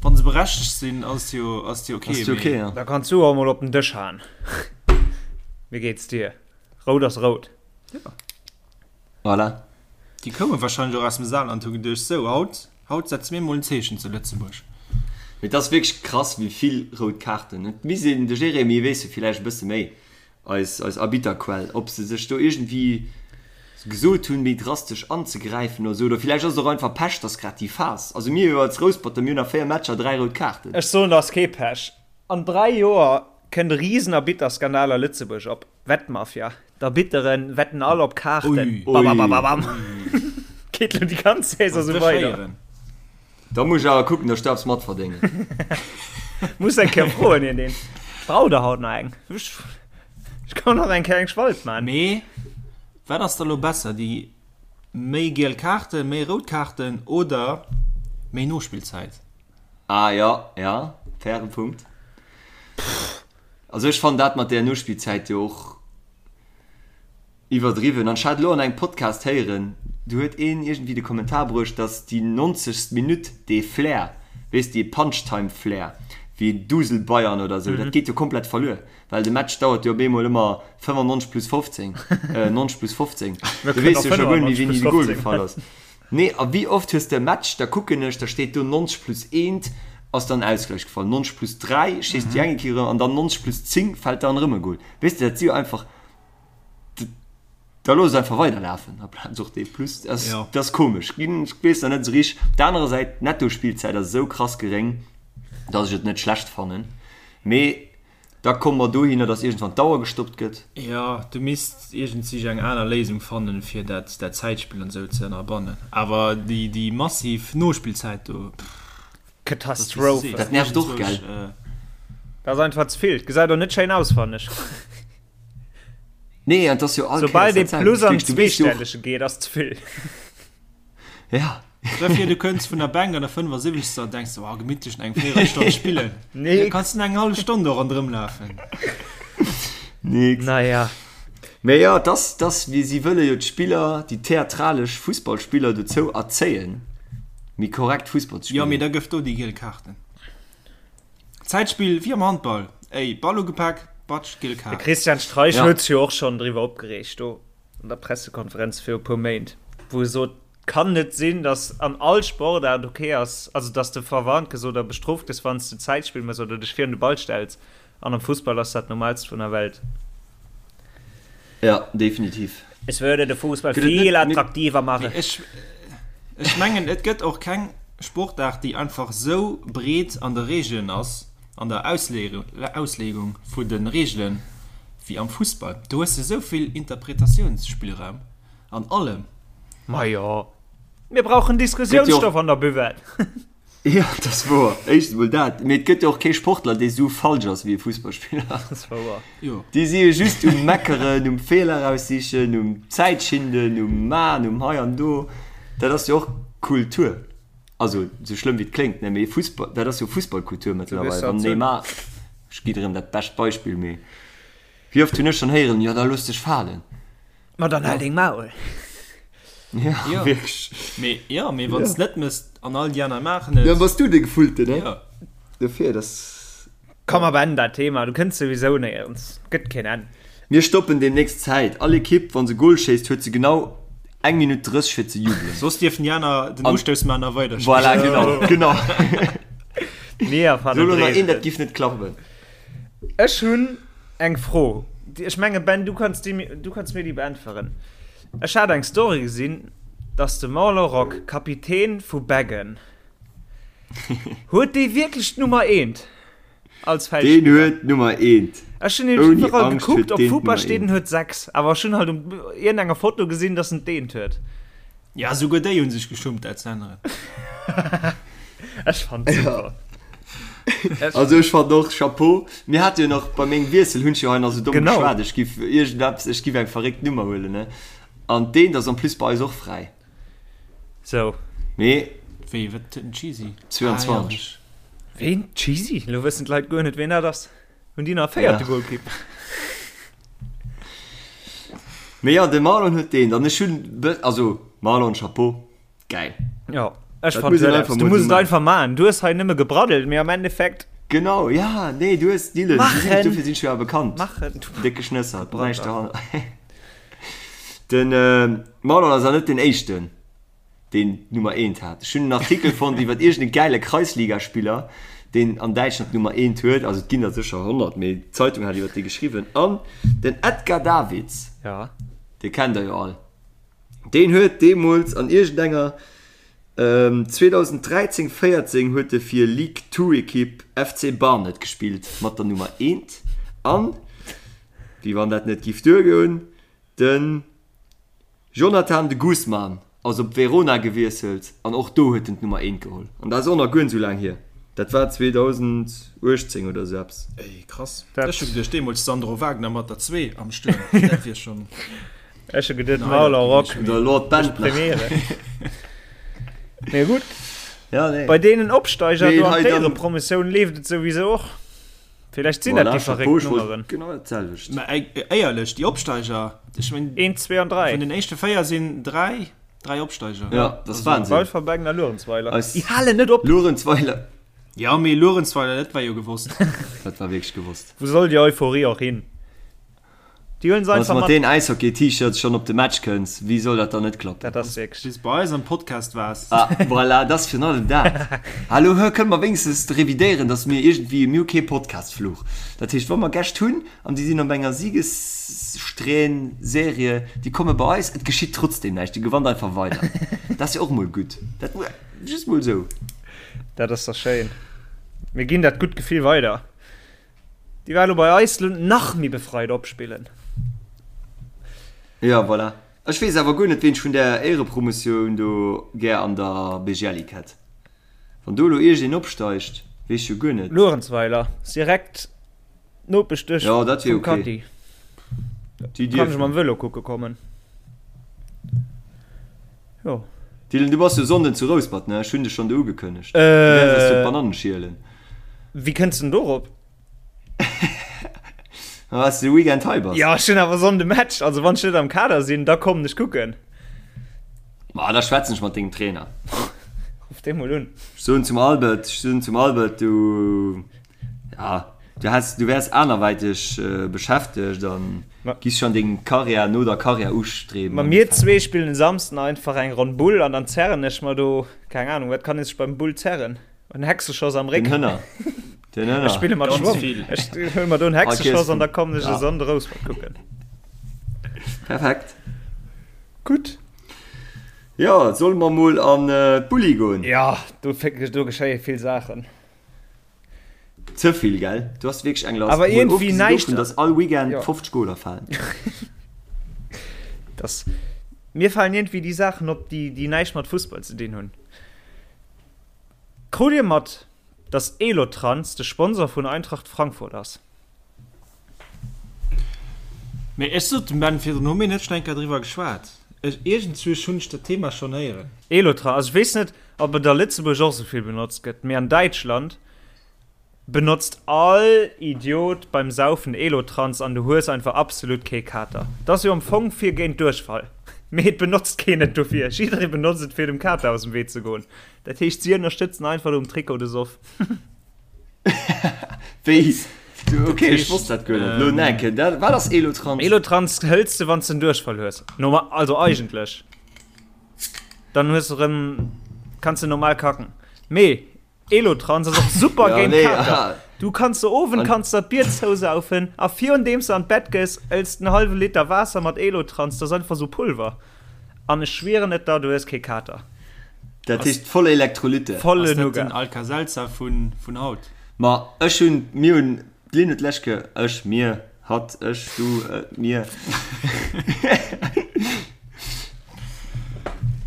Speaker 5: wann se berechtegt sinn, ass jo, ass jo okay.
Speaker 3: Ass jo okay, ja.
Speaker 4: Da kanns du och emol op den Dësch haen. Wéi geet's dir? Rout ass rout.
Speaker 5: Ja.
Speaker 3: Voilà.
Speaker 5: Déi koume wahrscheinlech och aus dem Saarland, hu geduecht, sou, haut, haut setze mir mol en Zeechen zu Lëtzebuerg.
Speaker 3: Mee et ass wierklech krass, wéi vill rout Kaarten. Et misst een, de Jérémy weess jo villäicht e bësse méi, eis, eis Arbitterquell, ob se sech do iergendwéi gesot hunn, méi drastesch anzegräifen oder sou. Oder villäicht ass et och einfach Pech, dass grad déi Phas, also mir jo als Rousperter, mir hunn a 4 Matcher 3 rout Kaarten.
Speaker 4: Ech soen, et ass kee Pech. An 3 Joer kënnt e Riesenarbitterskandal a Lëtzebuerg op. Wettmafia, D'Arbitteren wetten all op Kaarten. Babababam. Geet lo déi ganz Saison sou weider.
Speaker 3: Da muss ech awer kucken, dass ech do eppes matverdéngen.
Speaker 4: Muss eng Kéier froen hien deen. Brauch der haut nach eng? Ech kann nach eng Kéier eng Spalt man.
Speaker 5: Mee wat ass da lo besser, déi méi giel Kaarten, méi rout Kaarten oder. Méi Nospillzäit.
Speaker 3: Ah jo, ja, fairen Punkt. Also ech fannen dat mat där Nospillzäit jo och iwwerdriwwen. An ech hat elo an engem Podcast héieren, do huet een iergendwéi de Kommentar bruecht, datt déi 90. Minutt dee Flair, weess dee Punch-Time-Flair, wéi Dusel Bayern oder esou, dat geet jo komplett verluer, well de Match dauert jo op eemol ëmmer 95 plus 15, 90 plus 15. Du weess jo scho guer net méi, wéini de Gol gefall ass. Nee, a wéi oft hues de e Match, da kucken ech, da steet do 90 plus eent ass dann Ausgleich gefall, 90 plus 3 schéisst déi eng Ekipp erëm an dann 90 plus 10 fält dann erëm e Gol. Weess de, dat si jo einfach, da looss et einfach weiderlafen aplaz och dee plus. Dat ass, dat ass komesch ginn, ech weess nach net esou richteg. Op der anerer Säit, d'Nettospillzäit ass esou krass geréng, datt ech et net schlecht fannen, mee Da komme mer dohinner, dass iergendwann d'Auer gestoppt gëtt.
Speaker 5: Jo, du misst iergendsich eng aner Léisung fannen, fir dat Zäitspill an esou ze ënnerbannen. Awer déi massiv Nospillzäit do, pff.
Speaker 4: Katastrophe.
Speaker 3: Dat nervt och, gell?
Speaker 4: Dat ass einfach ze vill. Gesäit och net schéin aus, fannen ech.
Speaker 3: Nee, an 't ass jo all
Speaker 4: Kéiers dat selwecht. Soubal dee Plus an d'Zweestellege geet, ass ze vill.
Speaker 3: Ja.
Speaker 5: Stell vir du kënns vun der Bänk an der 75. an denks oh gemittlech eng Véierelstonn spillen.
Speaker 4: Nee.
Speaker 5: Da kanns du eng hallef Stonn do ronderëm lafen.
Speaker 3: Nix.
Speaker 4: Naja.
Speaker 3: Mee jo, et ass, et ass wéi si wëlle jo d'Spiller, déi theatralesch Fussballspiller dozou erzéien, méi korrekt Fussball ze
Speaker 5: Jo, mee
Speaker 3: spillen.
Speaker 5: da gëff do déi giel Kaarten. Zäitspill wéi am Handball, ey, Ball ugepak, batsch, giel
Speaker 4: De
Speaker 5: Kaart.
Speaker 4: Christian Streich
Speaker 3: Ja.
Speaker 4: huet sech jo och schonn driwwer opgereegt do an der Pressekonferenz viru puer Méint, wou e sot, Kann net sinn, dass an all Sportaart ok ass, also dass de verwarnt gëss oder bestrooft gëss, wann s de Zäitspill mëss oder dech virun de Ball stells. An am Fussball ass dat normalst vun der Welt.
Speaker 3: Ja, definitiv.
Speaker 4: Es würde de Fußball
Speaker 3: Gëtt et
Speaker 4: viel
Speaker 3: net,
Speaker 4: attraktiver machen.
Speaker 5: Mee ech, ech mengen, et gëtt och keng Sportaart, déi einfach esou breet an de Reegelen ass, an der Ausleegung vu de Reegelen, wéi am Fussball. Do hues de esou vill Interpretatiounsspillraum. An allem.
Speaker 4: Majo, mir brauchen Diskussiounsstoff an der Buvette.
Speaker 3: Jo, dat ass wouer. Éischtens emol dat, mee et gëtt jo och kee Sportler, dee sou falsch ass wéi e Fussballspiller.
Speaker 4: Dat ass wouer.
Speaker 5: Jo.
Speaker 3: Déi si jo just um Meckeren, um Feeler raussichen, um Zäitschinden, um Man, um hei an do. Dat ass jo och Kultur. Also, sou schlëmm wéi et kléngt, ne, mee Fussball, dat ass jo Fussballkultur mëttlerweil. Wann Neymar, ech gi erëm dat bescht Beispill, mee wéi oft hunn ech schonn héieren, jo da looss dech falen.
Speaker 4: Ma dann hal deng Maul.
Speaker 3: Ja, ja. Wierklech.
Speaker 5: Mee, ja, mee wann s net mëss an all déi aner maachen et.
Speaker 3: Dann bass du de Gefullte, ne?
Speaker 5: Ja.
Speaker 3: Dofir, dass.
Speaker 4: Komm, mer beenden dat Thema, du kënns souwisou néierens, gëtt keen Enn.
Speaker 3: Mir stoppen demnächst d'Zäit. All Ekipp, wa se Goal schéisst, huet se genau eng Minutt 30 fir ze jubelen.
Speaker 5: Soss dierfen déi aner den Ustouss maachen a weiderspillen.
Speaker 3: Voilà, genau, genau.
Speaker 4: Mir erfannen
Speaker 3: Sou elo nach een,
Speaker 4: d'Reegelen.
Speaker 3: dat giff net klappen.
Speaker 4: Ech hunn eng Fro. Ech menge Ben, du kanns déi, du kanns mir déi beäntweren. Ech hat eng Story gesinn, dass de Marlon Rock, Kapitän vu Beggen, huet dee wierklech d'Nummer eent als
Speaker 3: Deen
Speaker 4: Feldspiller?
Speaker 3: huet d'Nummer eent.
Speaker 4: Ech hunn nämlech
Speaker 3: Ouni
Speaker 4: iwwerall
Speaker 3: Angscht
Speaker 4: gekuckt,
Speaker 3: huet
Speaker 4: op
Speaker 3: deen
Speaker 4: Fupa
Speaker 3: d'Nummer
Speaker 4: steet
Speaker 3: eent.
Speaker 4: en huet 6, awer ech hunn halt um iergendenger Foto gesinn, dass en d'eent huet.
Speaker 5: Ja, souguer déi hunn sech geschummt, dat ze änneren.
Speaker 4: Ech fand super.
Speaker 3: Ja. Also ech fand och Chapeau. Mir hate jo nach bei mengem Wiessel hunn ech jo hei nach sou domm
Speaker 4: Genau.
Speaker 3: geschwat, ech giff iergendeppes, ech giff eng verréckt Nummer huelen, ne? An d'eent ass en plus bei eis och fräi.
Speaker 4: Sou.
Speaker 3: Mee.
Speaker 5: Wéi, wat huet den Cheesy?
Speaker 3: 22.
Speaker 5: Ah, ja.
Speaker 4: Ween? Cheesy? Lo wëssen d'Leit guer net, ween dat ass. Hunn déi nach e véierte
Speaker 3: Ja.
Speaker 4: Golkipp?
Speaker 3: Mee jo, de Marlon huet deen. An ech hunn, also Marlon, Chapeau, gäil.
Speaker 4: Jo, ech
Speaker 3: Dat
Speaker 4: fand
Speaker 3: muss een
Speaker 4: huet
Speaker 3: einfach
Speaker 4: eppes. Du
Speaker 3: mol
Speaker 4: muss
Speaker 3: sou
Speaker 4: et
Speaker 3: maachen.
Speaker 4: einfach maachen. Du hues hei nëmme gebraddelt, mee am Endeffekt.
Speaker 3: Genau, ja, nee, du hues Dylan, du sinn,
Speaker 4: Maachen!
Speaker 3: dofir sinn ech jo awer bekannt.
Speaker 4: Maachen!
Speaker 3: Décke Schnësser, näischt
Speaker 4: Gebraddel.
Speaker 3: dohanner. Den Marlon ass awer net den éischten. deen d'Nummer eent hat. Ech hunn en Artikel fonnt iwwer iergend e gäile Kreisligaspiller, deen an Däitschland d'Nummer eent huet. Also et ginn der sécher 100, mee d'Zeitung hat iwwer dee geschriwwen. An den Edgar Davids,
Speaker 4: Ja.
Speaker 3: dee kennt der jo all, deen huet deemools an iergendenger 2013, 14 huet e fir League Two Ekipp FC Barnet gespillt mat der Nummer eent. An, wéi wann dat net giff duergoen, den Jonathan de Guzman ass op Verona gewiesselt an och do huet en d'Nummer eent geholl. An dat ass och nach guer net esou laang hier, dat war 2018 oder esou eppes.
Speaker 5: Ey krass,
Speaker 4: Dat.
Speaker 5: ech hu geduecht deemools Sandro Wagner mat der 2 am Stuerm, dat wier schon
Speaker 4: Ech hu geduet
Speaker 5: en Highlight
Speaker 4: Marlon Rock
Speaker 5: gewiescht,
Speaker 3: Oder
Speaker 5: mee
Speaker 3: Lord
Speaker 4: mécht
Speaker 3: Bentner.
Speaker 4: Premiere. Mee gutt.
Speaker 3: Ja, nee.
Speaker 4: Bei deenen Opsteiger
Speaker 3: Nee,
Speaker 4: do an
Speaker 3: hei dann-
Speaker 4: d'Éierepromotioun leeft et souwisou och. Villäicht sinn dat
Speaker 3: Voilà,
Speaker 4: déi
Speaker 3: Chapeau,
Speaker 4: verréckt
Speaker 3: ech wollt
Speaker 4: Nummeren.
Speaker 3: Genau dat selwecht.
Speaker 5: Mä éierlech, déi Opsteiger, ech mengen,
Speaker 4: 1, 2 an 3.
Speaker 5: vun den éischte 4 sinn 3, 3 Opsteiger.
Speaker 3: Ja, dat ass Wahnsinn.
Speaker 4: Walferbengen a Luerenzweiler.
Speaker 3: Eis-
Speaker 4: Déi halen net op.
Speaker 3: Luerenzweiler,
Speaker 5: Ja, mee Luerenzweiler, dat war jo gewosst.
Speaker 3: dat war wierklech gewosst.
Speaker 4: Wou soll déi Euphorie och hin? Déi huelen se
Speaker 3: Wann s
Speaker 4: einfach
Speaker 3: mat
Speaker 4: mat.
Speaker 3: deen Äishockey-T-Shirts schonn op de Match kënns, wéi soll dat dann net klappen?
Speaker 4: Dat ass wierklech.
Speaker 5: Bis bei eis am Podcast waars.
Speaker 3: Ah, voilà, dat ass virun allem dat. Hallo, hë, kënne mer wéinstens revidéieren, datt mir iergendwéi, mir hu kee Podcast-Fluch. Dat heescht, wa mer Gäscht hunn an déi sinn op enger Siegessträhn, Serie, déi komme bei eis, et geschitt trotzdem näischt, Dir gewannt einfach weider. Dat ass jo och mol gutt. Dat just mol esou.
Speaker 4: Dat ass da schéin. Mir ginn dat gutt Gefill weider. Déi war elo bei eis lo nach méi befreit opspillen.
Speaker 3: Jo, voilà. Ech weess awer guer net, ween ech vun där Éierepromotioun do gär an der BGL-Ligue hätt. Wann do elo iergendeen opsteigt, weess ech jo guer net.
Speaker 4: Luerenzweiler ass direkt d'Nopeschduerf
Speaker 3: Jo, dat wier
Speaker 4: vum
Speaker 3: ok.
Speaker 4: Katti.
Speaker 3: Déi
Speaker 4: Kann ech
Speaker 3: dierfen.
Speaker 4: mam Vëlo kucke kommen. Jo.
Speaker 3: Dylan, du bass jo Sonnden zu Rouspert, ne? Ech hunn dech schonn do ugekënnegt. Du wäers eis do d'Banannen schielen.
Speaker 4: Wéi kënns de denn dorop?
Speaker 3: Ma well s de de Weekend hei bass.
Speaker 4: Jo, ech hunn awer Sonnde Match, also wann ech net am Kader sinn, da kommen ech kucken.
Speaker 3: Ma da schwätzen ech mat dengem Trainer.
Speaker 4: Ruff dee mol un.
Speaker 3: Ech soen zum Albert, ech soen zum Albert, du, ja, du häss, du wäers anerwäiteg beschäftegt an giss schonn deng Karriär no der Karriär ustreben.
Speaker 4: Ma mir zwee spillen e Samsden einfach eng Ronn Bull an dann zerren ech mer do, keng Ahnung, wat kann ee sech beim Bull zerren? En Hexeschoss am Réck.
Speaker 3: Den Hënner. Den Hënner.
Speaker 4: Ech spille mat
Speaker 5: Ganz
Speaker 4: Schwong.
Speaker 5: vill.
Speaker 4: Ech huele mer do en Hexeschoss an da kommen ech e
Speaker 3: Ja.
Speaker 4: Sonnde Rouspert kucken.
Speaker 3: Perfekt.
Speaker 4: Gutt.
Speaker 3: Jo, solle mer mol an d'Bulli goen?
Speaker 4: Ja, do, do geschéie vill Saachen.
Speaker 3: Ze vill, gell? Du has wierklech eng Last.
Speaker 4: Awer
Speaker 3: Mol
Speaker 4: iergendwéi
Speaker 3: ofgesinn
Speaker 4: näischt.
Speaker 3: dovun, dass all Weekend
Speaker 4: Ja.
Speaker 3: 50 Goler falen.
Speaker 4: Das, mir falen iergendwéi déi Saachen op, déi, déi näischt mat Fussball ze dinn hunn. Krut dir mat, dass Elotrans de Sponsor vun Eintracht Frankfurt ass?
Speaker 5: Mee ech sot dem Ben virdrun, hu mir net schon eng Kéier driwwer geschwat? Ech, iergendzwousch hunn ech dat Thema schonn héieren.
Speaker 4: Elotrans, also ech weess net, ob et a Lëtzebuerg och esou vill benotzt gëtt, mee an Däitschland benotzt all Idiot beim Saufen Elotrans an du hues einfach absolut kee Kater. Dat ass jo am Fong fir géint Duerchfall, mee et benotzt keen et dofir. Jidderee benotzt et fir dem Kater aus dem Wee ze goen. Dat heescht, si ënnerstëtzen einfach do um Trikot de Soff.
Speaker 3: Wéi? Ok, ech wosst dat guer net. Lo enke, dat, wat ass Elotrans?
Speaker 4: Elotrans hëls de, wann s de en Duerchfall hues. Normal, also eigentlech. Dann hues de rëm, kanns de normal kacken. Mee Elotrans ass och super
Speaker 3: Ja,
Speaker 4: géint
Speaker 3: nee,
Speaker 4: Kater.
Speaker 3: aha.
Speaker 4: Du kanns de Owend
Speaker 3: An-
Speaker 4: kanns dat Bier zousaufen a virun deems de an d'Bett gees, ëlls de en hallwe Liter Waasser mat Elotrans, dat ass einfach sou Pulver. An ech schwieren et der, du hues kee Kater.
Speaker 3: Dat heescht voll Elektrolyte.
Speaker 4: Volle
Speaker 5: Ass dat
Speaker 4: Nougat.
Speaker 5: den Alka-Seltzer vun, vun haut?
Speaker 3: Ma ech hunn, mir hunn, d'Lynn huet d'lescht Kéier, ech, mir, hatt, ech, du, mir.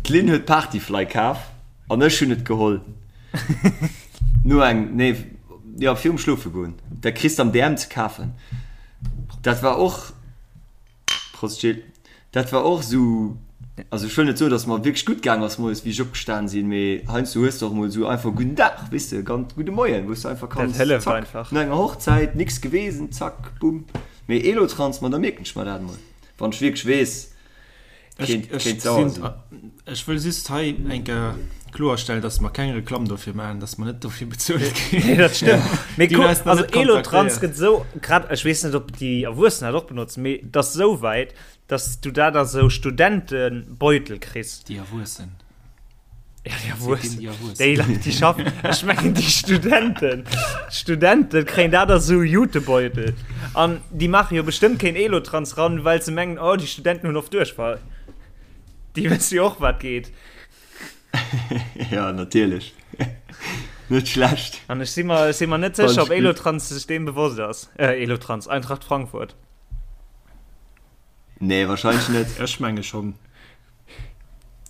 Speaker 3: D'Lynn huet Partyfly kaf an ech hunn et geholl. No eng, nee, jo, virum Schlofe goen. Dat kriss de am DM ze kafen. Dat war och. Prost Gilles. Dat war och esou, also ech wëll net soen, datt mer wierklech gutt gaang ass moies wéi ech opgestan sinn, mee heiansdo hues de och emol esou einfach gudden Dag, weess de, ganz gudde Moien, wou s de einfach kanns,
Speaker 4: Dat hëlleft
Speaker 3: zack,
Speaker 4: einfach.
Speaker 3: no enger Hochzäit, nix gewesen, zack, bumm. Mee Elotrans, ma da mierken ech mer dat emol, wann ech wierklech weess,
Speaker 5: Ech,
Speaker 3: kéint,
Speaker 5: ech
Speaker 3: kéint sauer
Speaker 5: sinn,
Speaker 3: sinn.
Speaker 5: ech wëll just hei eng Kéier kloerstellen, dass mer keng Reklamm dofir maachen, dass mer net dofir bezuelt ginn.
Speaker 4: Nee, dat stëmmt. Mee
Speaker 5: Déi hunn
Speaker 4: kuck,
Speaker 5: eis nach
Speaker 4: also
Speaker 5: net
Speaker 4: Elotrans
Speaker 5: kontaktéiert.
Speaker 4: gëtt esou, grad, ech weess net, ob déi Erwuessen dat och benotzen, mee et ass esou wäit, dass du dat a sou Studentebeutel kriss.
Speaker 5: Déi Erwuessen.
Speaker 4: Ja, déi Erwuessen.
Speaker 5: Déi Erwuessen.
Speaker 4: Déi Leit, déi schaffen. Ech mengen déi Studenten. D'Studente kréien dat a sou Jutebeutel. An déi maache jo bestëmmt keen Elotrans ran, well se mengen, oh, déi Studenten hunn oft Duerchfall. Déi wësse jo och, wat geet.
Speaker 3: Ja, natierlech. Net schlecht.
Speaker 4: An ech si mer, ech si mer net
Speaker 3: Fand
Speaker 4: sécher,
Speaker 3: ech
Speaker 4: ob
Speaker 3: gutt.
Speaker 4: Elotrans sech deem bewosst ass. Äh, Elotrans, Eintracht Frankfurt.
Speaker 3: Nee, wahrscheinlech net.
Speaker 5: Ech menge schonn.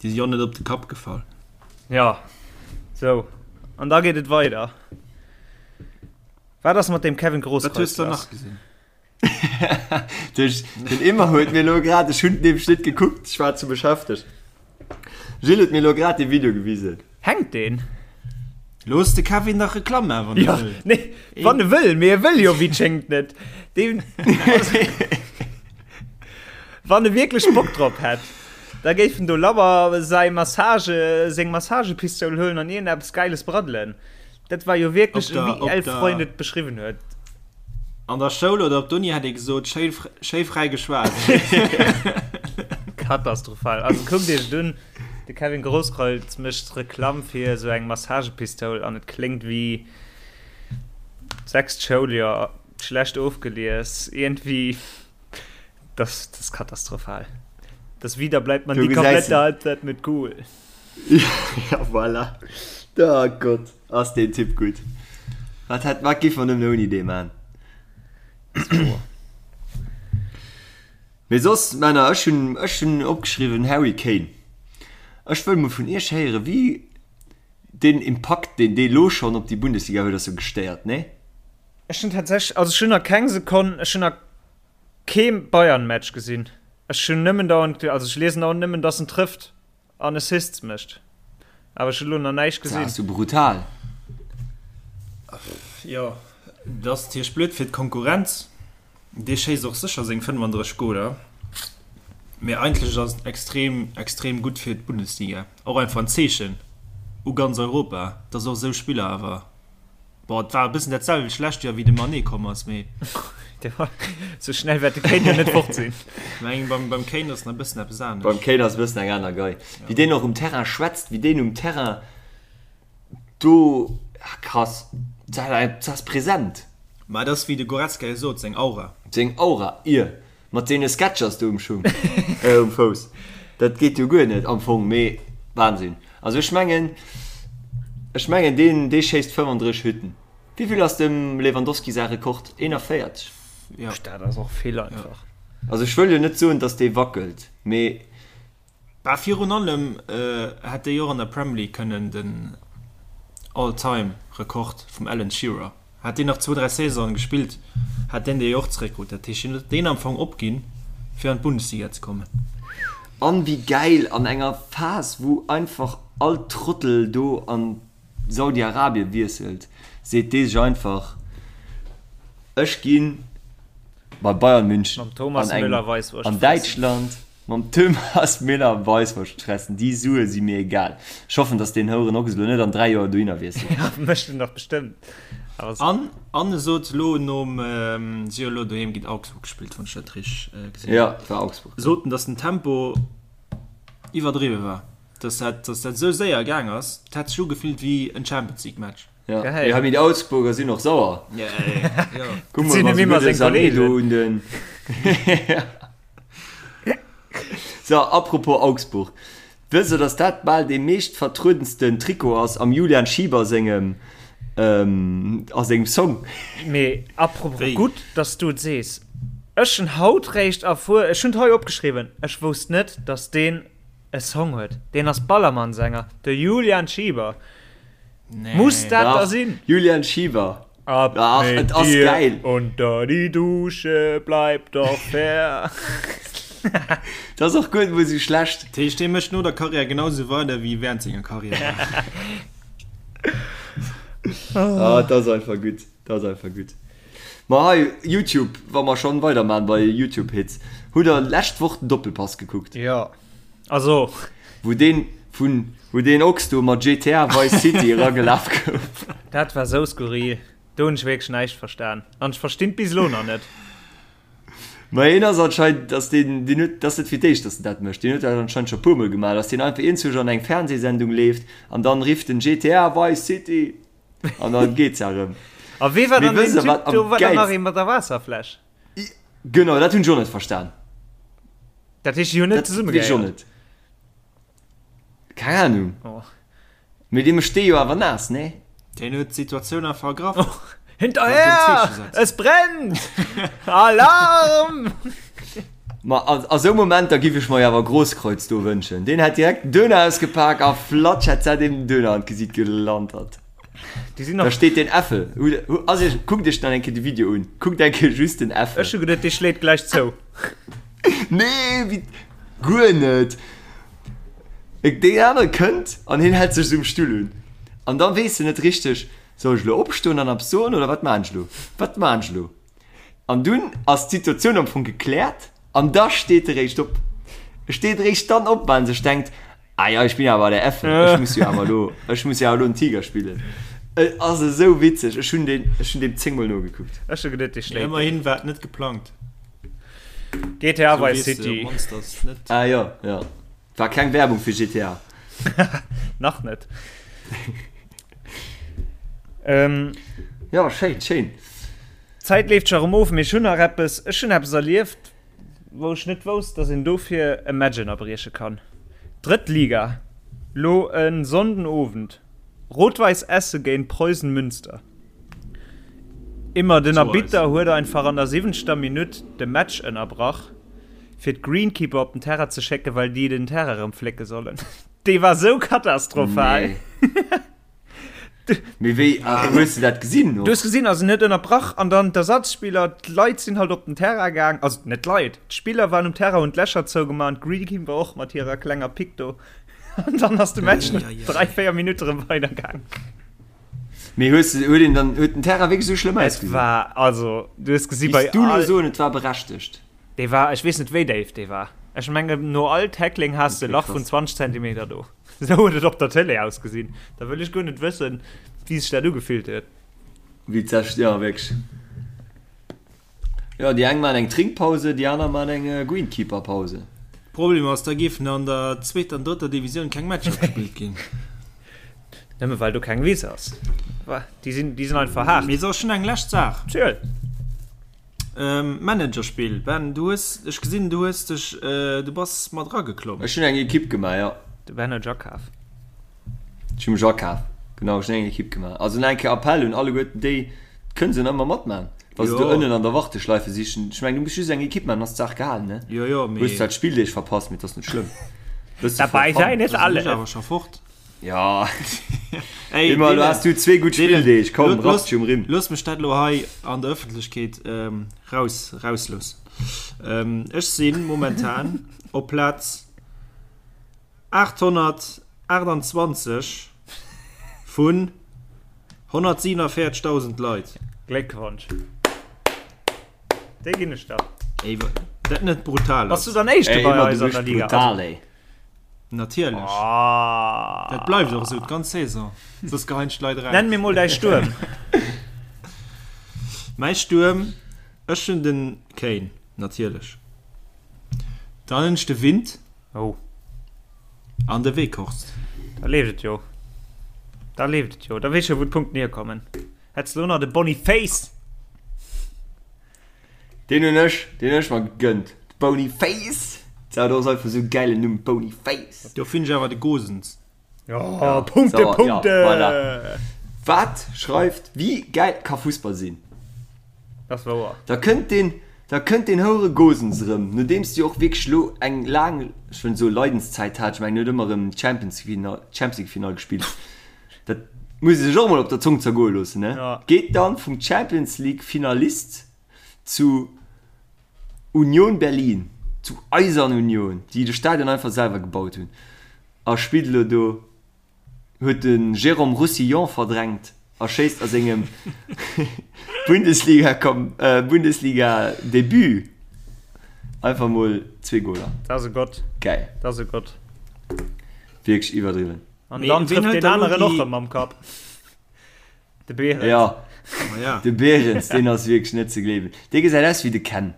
Speaker 5: Déi si jo net op de Kapp gefall.
Speaker 4: Ja, sou. An da geet et weider. Wat ass mat deem Kevin
Speaker 5: Wat hues
Speaker 4: Grosskreutz
Speaker 5: de
Speaker 4: lass?
Speaker 5: nach gesinn?
Speaker 3: Duerch den Emma huet mir lo grad, ech hunn nämlech net gekuckt, ech war ze beschäftegt. Gilles huet mir lo grad de Video gewisen.
Speaker 4: Hänkt deen?
Speaker 5: Looss de Kevin dach Reklamm maachen, wann e
Speaker 4: wëll. Nee, wann e wëll, mee e wëll jo wéi et schéngt net. Deen, wann e wierklech Bock drop hätt, da géif en do labber säi Massage, seng Massagepistoul huelen an iergendeppes Gäiles braddelen. Dat war jo wierklech, wéi 11 Freund et beschriwwen huet.
Speaker 5: An der Schoul oder op d'Uni hätt ee gesot, schéi, schéi fräi geschwat.
Speaker 4: Katastrophal. Also kuckt iech et un. De Kevin Grosskreutz mécht Reklamm fir esou eng Massagepistoul an et kléngt wéi sechst Schouljoer, schlecht ofgelies, iergendwéi, das das katastrophal. Das wieder bleibt man
Speaker 3: Du
Speaker 4: die
Speaker 3: gesäis
Speaker 4: komplette
Speaker 3: en.
Speaker 4: Halbzeit mit cool.
Speaker 3: Ja voilà. Oh Gott, ass deen Typ gutt. Wat hätt, wat giff mer nëmmen ouni dee man? Mee soss, Männer, ech hunn, ech hunn opgeschriwwen, Harry Kane. Ech wëll mol vun Iech héieren, wéi deen Impakt, deen dee lo schonn op déi Bundesliga huet, ass jo gestéiert, nee?
Speaker 4: Ech hunn tatsächlech, also ech hunn nach keng Sekonn, ech hunn nach kee Bayern-Match gesinn. Ech hunn nëmmen dauernd, also ech liesen dauernd nëmmen, datt en trëfft. An Assists mécht. Awer ech hu lo nach näischt
Speaker 3: Dat
Speaker 4: gesinn.
Speaker 3: ass jo brutal.
Speaker 5: Jo, dat ass natierlech blöd fir d'Konkurrenz. Dee schéisst och sécher seng 35 Goler. Mee eigentlech ass et extrem, extrem gutt fir d'Bundesliga. Och einfach en Zeechen u ganz Europa, dass och esou Spiller awer Bon, et war e bëssen dat selwecht lescht Joer, wéi de Mané komm ass, mee.
Speaker 4: Sou schnell wäert de Kane jo net fort sinn.
Speaker 5: Meng beim, beim Kane ass nach e bëssen eppes anescht.
Speaker 3: Beim Kane ass e bëssen eng aner Gei. Wéi deen och um Terrain schwätzt, wéi deen um Terrain do, ah krass, dat ass present.
Speaker 5: Ma et ass, wéi de Goretzka jo sot, seng Aura.
Speaker 3: Seng Aura, ier. Mat deene Sketchers do um Schung, äh um Fouss, dat geet jo guer net am Fong, mee Wahnsinn. Also ech mengen, ech mengen deen dee schéisst 35 Hütten. Wéivill ass dem Lewandowski säi Rekord? 41?
Speaker 5: Ja.
Speaker 4: Dat ass och vill einfach.
Speaker 3: Also ech wëll jo net soen, datt dee wackelt, mee.
Speaker 5: Bah, virun allem hätt dee jo och an der Premier League kënnen den All-Time Rekord vum Alan Shearer, hätt deen nach zwou, dräi Saisonen gespillt, hätt deen dee jo och zeréckkrut. Dat heescht, hien huet deen am Fong opginn, fir an d'Bundesliga ze kommen.
Speaker 3: An wéi gäil, an enger Phas wou einfach all Trottel do an Saudi-Arabien wiesselt, seet dee sech einfach, ech ginn bei Bayern München
Speaker 4: Mam Thomas
Speaker 3: an eng
Speaker 4: Müller Weisswurscht
Speaker 3: an
Speaker 4: fressen.
Speaker 3: Däitschland. Mam Thomas Müller Weisswurscht fressen, déi Sue si mir egal. Ech hoffen, dass deen Houeren Ochs elo net an 3 Joer dohinner wiesselt.
Speaker 4: Ja, mécht en dach bestëmmt. Awer
Speaker 5: An an e sot elo nom, si hu elo doheem géint Augsburg gespillt, wann ech dat richteg gesinn hunn,
Speaker 3: Ja, et war Augsburg.
Speaker 5: sot en, dass den Tempo iwwerdriwwe war, dass dat, dass dat esou séier gaang ass, et hätt sech ugefillt wéi en Champions League Match.
Speaker 3: Ja,
Speaker 4: Geil.
Speaker 3: ja, mee déi Augsburger sinn och sauer.
Speaker 5: Ja, ja.
Speaker 3: Kuck
Speaker 4: Sinn
Speaker 3: mol,
Speaker 4: em
Speaker 3: wa
Speaker 4: immer
Speaker 3: se
Speaker 4: seng
Speaker 3: gudde Sané do
Speaker 4: Kollegen.
Speaker 3: un den. So, apropos Augsburg. Wësst der, dass dat bal dee meescht vertruedensten Trikot ass am Julian Schieber sengem, a sengem Song?
Speaker 4: Mee apropos,
Speaker 5: Wéi?
Speaker 4: gutt, dass du et sees. Ech hunn haut réischt erfuer, ech hunn et hei opgeschriwwen, ech wousst net, dass deen e Song huet. Deen ass Ballermann-Sänger, de Julian Schieber. Muss dat da
Speaker 3: Dach,
Speaker 4: sinn?
Speaker 3: Julian Schieber.
Speaker 4: Ab
Speaker 3: Ach,
Speaker 4: mit
Speaker 3: et ass
Speaker 4: dir
Speaker 3: geil.
Speaker 4: unter die Dusche, bleib doch fair.
Speaker 3: Dat ass och guer net mol sou schlecht.
Speaker 5: Dat heescht, dee mécht no der Karriär genau sou weider wéi während senger Karriär.
Speaker 3: Ah, dat ass einfach gutt. Dat ass einfach gutt. Ma hei, YouTube, wa mer schonn weiderman bei YouTube-Hits, hutt der lescht Woch den Doppelpass gekuckt?
Speaker 4: Jo. Also.
Speaker 3: Wou deen vun, wou deen Ochs do mat GTA Vice City eragelaf gouf.
Speaker 4: Dat war sou skurril. Do hunn ech wierklech näischt verstan. An ech verstinn et bis elo nach net.
Speaker 3: Ma hien ass anscheinend, dass deen, deen huet, dat ass net fir d'éischt, dass en dat mécht. Deen huet dat anscheinend scho puermol gemaach, dass deen einfach iergendwou an eng Fernsehsendung leeft an dann rifft en GTA Vice City an dann geet se erëm.
Speaker 4: A wee war
Speaker 3: Mee
Speaker 4: dann deen
Speaker 3: wësst der
Speaker 4: Typ
Speaker 3: wat am
Speaker 4: do? War dann nach
Speaker 3: gäilsten?
Speaker 4: ee mat der Waasserfläsch?
Speaker 3: Genau, dat hunn ech och net verstan.
Speaker 4: Dat heescht, déi hunn net
Speaker 3: Dat weess ech och
Speaker 4: zesummegehéiert?
Speaker 3: net. Keng Ahnung.
Speaker 4: Oh.
Speaker 3: Mee dee mécht dee jo awer naass, nee?
Speaker 5: Deen huet d'Situatioun einfach ergraff.
Speaker 4: Oh. Hinterher! Es brennt! Alarm!
Speaker 3: Ma a, a sou Momenter giff ech mer jo awer Grosskreutz do wënschen. Deen hätt direkt den Döner ausgepak a flatsch hätt se deem den Döner an d'Gesiit gelantert.
Speaker 4: Déi sinn
Speaker 3: Da
Speaker 4: nach.
Speaker 3: steet deen Äffel. Ass iech, kuckt iech dann eng Kéier de Video un. Kuckt eng Kéier just den Äffel.
Speaker 4: Ech hu geduet, dee schléit gläich zou.
Speaker 3: Nee, wéi, guer net. Deen anere kënnt an hien hält sech esou um Stull un. An da weess de net richteg, soll ech elo opstoen an eppes soen oder wat maan ech elo? Wat maan ech elo? An dunn ass d'Situatioun am Fong gekläert an da steet e réischt op. E steet réischt dann op, well en sech denkt, Ah ja, ich bin awer der Effe, ech muss jo awer elo, ech muss jo awer elo den Tiger spillen. Et ass esou witzeg, ech hunn deen, ech hunn deem zéngmol nogekuckt.
Speaker 4: Ech hu geduet, dee
Speaker 5: Mee
Speaker 4: schléit deen.
Speaker 5: ëmmerhin war et net geplangt.
Speaker 4: GTA
Speaker 5: Sou
Speaker 4: Vice
Speaker 5: weess de
Speaker 4: City.
Speaker 5: op d'mannst, datt et net.
Speaker 3: Ah jo, jo. War keng Werbung fir GTA.
Speaker 4: Nach net. Ähm.
Speaker 3: Jo, schéin, schéin.
Speaker 4: D'Zäit leeft scho erëm of, mee ech hunn nach eppes, ech hunn eppes erlieft, wou ech net wousst, dass een dofir e Match ënnerbrieche kann. Drëtt Liga, lo e Sonnden Owend, Rot-Weiss Essen géint Preußen Münster. Immer den Arbitter huet einfach an der siwwenzter Minutt de Match ënnerbrach, fir d'Greenkeeper op den Terrain ze schécken, well déi den Terrain erëm flécke sollen. Dee war sou katastrophal.
Speaker 3: Nee. Mee wéi hues de dat gesinn?
Speaker 4: Du hues gesinn, also en huet ënnerbrach an dann d'Ersatzspiller, d'Leit sinn halt op den Terrain gaang, also net d'Leit, d'Spiller waren um Terrain, hunn d'Lächer zougemaach an d'Greenkeeper och mat hirer klenger Pick do. An dann ass de Match no 3, 4 Minutte erëm weidergaang.
Speaker 3: Mee hues de, huet een dann, huet den Terrain wierklech esou schlëmm
Speaker 4: Et
Speaker 3: ausgesinn?
Speaker 4: war, also du hues gesi bei
Speaker 3: Wéis du lo
Speaker 4: all.
Speaker 3: soen, et war berechtegt?
Speaker 4: Dee war, ech weess net wéi déif dee war. Ech mengen no all Tackling has de e
Speaker 3: Okay,
Speaker 4: Lach vun
Speaker 3: krass.
Speaker 4: 20 Zentimeter do. Esou huet et op der Tëlee ausgesinn. Da wëll ech guer net wëssen, wéi sech dat ugefillt huet.
Speaker 3: Wéi d'sech, jo wierklech. Jo, déi eng maan eng Trinkpause, déi aner maan eng Greenkeeper-Pause.
Speaker 5: Problem ass, da géifen an der zweeter an drëtter Divisioun keng Matcher gespillt ginn.
Speaker 4: Nëmme well do keng Wiss ass. Déi sinn, déi sinn einfach haart.
Speaker 5: Mee so, ech hunn eng lescht Saach.
Speaker 4: Ziel.
Speaker 5: Managerspill, Ben, du hues, ech gesinn, du hues dech, du bass mat erageklomm.
Speaker 3: Ech hunn eng Ekipp gemaach, jo.
Speaker 4: De Ben huet sech akaf.
Speaker 3: Ech hu mech akaf, genau, ech hunn eng Ekipp gemaach. Also nach eng Kéier Appell un alleguerten déi, kënne se nach ëmmer matman, wa se do ënnen an der Warteschleife sichen. Ech mengen, du muss just eng Ekipp maachen, dann ass d'Saach gehalen, ne?
Speaker 5: Jo, jo, mee.
Speaker 3: Hues zwar d'Spilldeeg verpasst, mee et ass net schlëmm. Bësse for
Speaker 4: Dabei
Speaker 3: fun.
Speaker 4: sein ist
Speaker 5: Da sinn
Speaker 4: alles.
Speaker 5: ech awer scho fort.
Speaker 3: Ja.
Speaker 5: Ey,
Speaker 3: Immer,
Speaker 5: Dylan,
Speaker 3: du hast du zwee gutt
Speaker 5: Dylan,
Speaker 3: Spilldeeg, komm,
Speaker 5: lo-
Speaker 3: rapp dich um Rimm.
Speaker 5: Looss mech dat lo hei an der Ëffentlechkeet ähm, raus, rausloossen. Ähm, ech si momentan op Plaz 828 vun 147.000 Leit.
Speaker 4: Gléckwonsch. Déi ginn ech der.
Speaker 5: Ey, wa- dat net brutal
Speaker 4: Bass du
Speaker 5: ass.
Speaker 4: dann Éischte
Speaker 3: Ey,
Speaker 4: bei
Speaker 3: immer,
Speaker 4: eis
Speaker 3: du
Speaker 4: an der
Speaker 3: bist
Speaker 4: Liga?
Speaker 3: brutal, ey.
Speaker 5: Natierlech.
Speaker 4: Ah.
Speaker 5: Dat bleift och esou d'ganz Saison. Soss geheien ech d'Leit eraus.
Speaker 4: Nenn mir mol däi Stuerm.
Speaker 5: Mäi Stuerm, ech hunn den Kane, natierlech. Dann hunn ech de Wind.
Speaker 4: Oh.
Speaker 5: An de Weghorst.
Speaker 4: Da leeft et jo. Da leeft et jo. Da weess ech jo, wou d'Punkten hierkommen. Hätts de lo nach de Boniface.
Speaker 3: Deen hunn ech, deen hunn ech mer gegönnt. Bony Face! Dat ass einfach esou e gäilen Numm, Bony Face.
Speaker 5: Do finn ech awer de Gosens.
Speaker 4: Ja, Punkte,
Speaker 3: Sauer,
Speaker 4: Punkte!
Speaker 3: Ja, voilà. Wat schreift, wéi gäil ka Fussball sinn?
Speaker 4: Dat ass wouer.
Speaker 3: Da kënnt deen, da kënnt deen houere Gosens erëm, nodeems de jo och wierklech elo eng laang, ech wëll net soe Leidenszäit hat, ech mengen, en huet ëmmer erëm d'Champions Final, Champions League Final gespillt. Dat muss ee sech och emol op der Zong zergoe loossen, ne?
Speaker 4: Ja.
Speaker 3: Geet dann vum Champions League Finalist zu Union Berlin, zu Eisern Union, déi de Stadion einfach selwer gebaut hunn, a spillt elo do, huet de Jérôme Roussillon verdrängt a schéisst a sengem Bundesliga Bundesliga Debut einfach mol zwee Goler.
Speaker 4: Dat ass e Gott.
Speaker 3: Geil.
Speaker 4: Dat ass e Gott.
Speaker 3: Wierklech iwwerdriwwen.
Speaker 4: An dann trifft deen aneren och erëm mam Kapp. De Behrens.
Speaker 3: Ja,
Speaker 5: Ma ja.
Speaker 3: de Behrens, deen ass wierklech net ze gleewen. Dee gesäit aus wéi de Ken.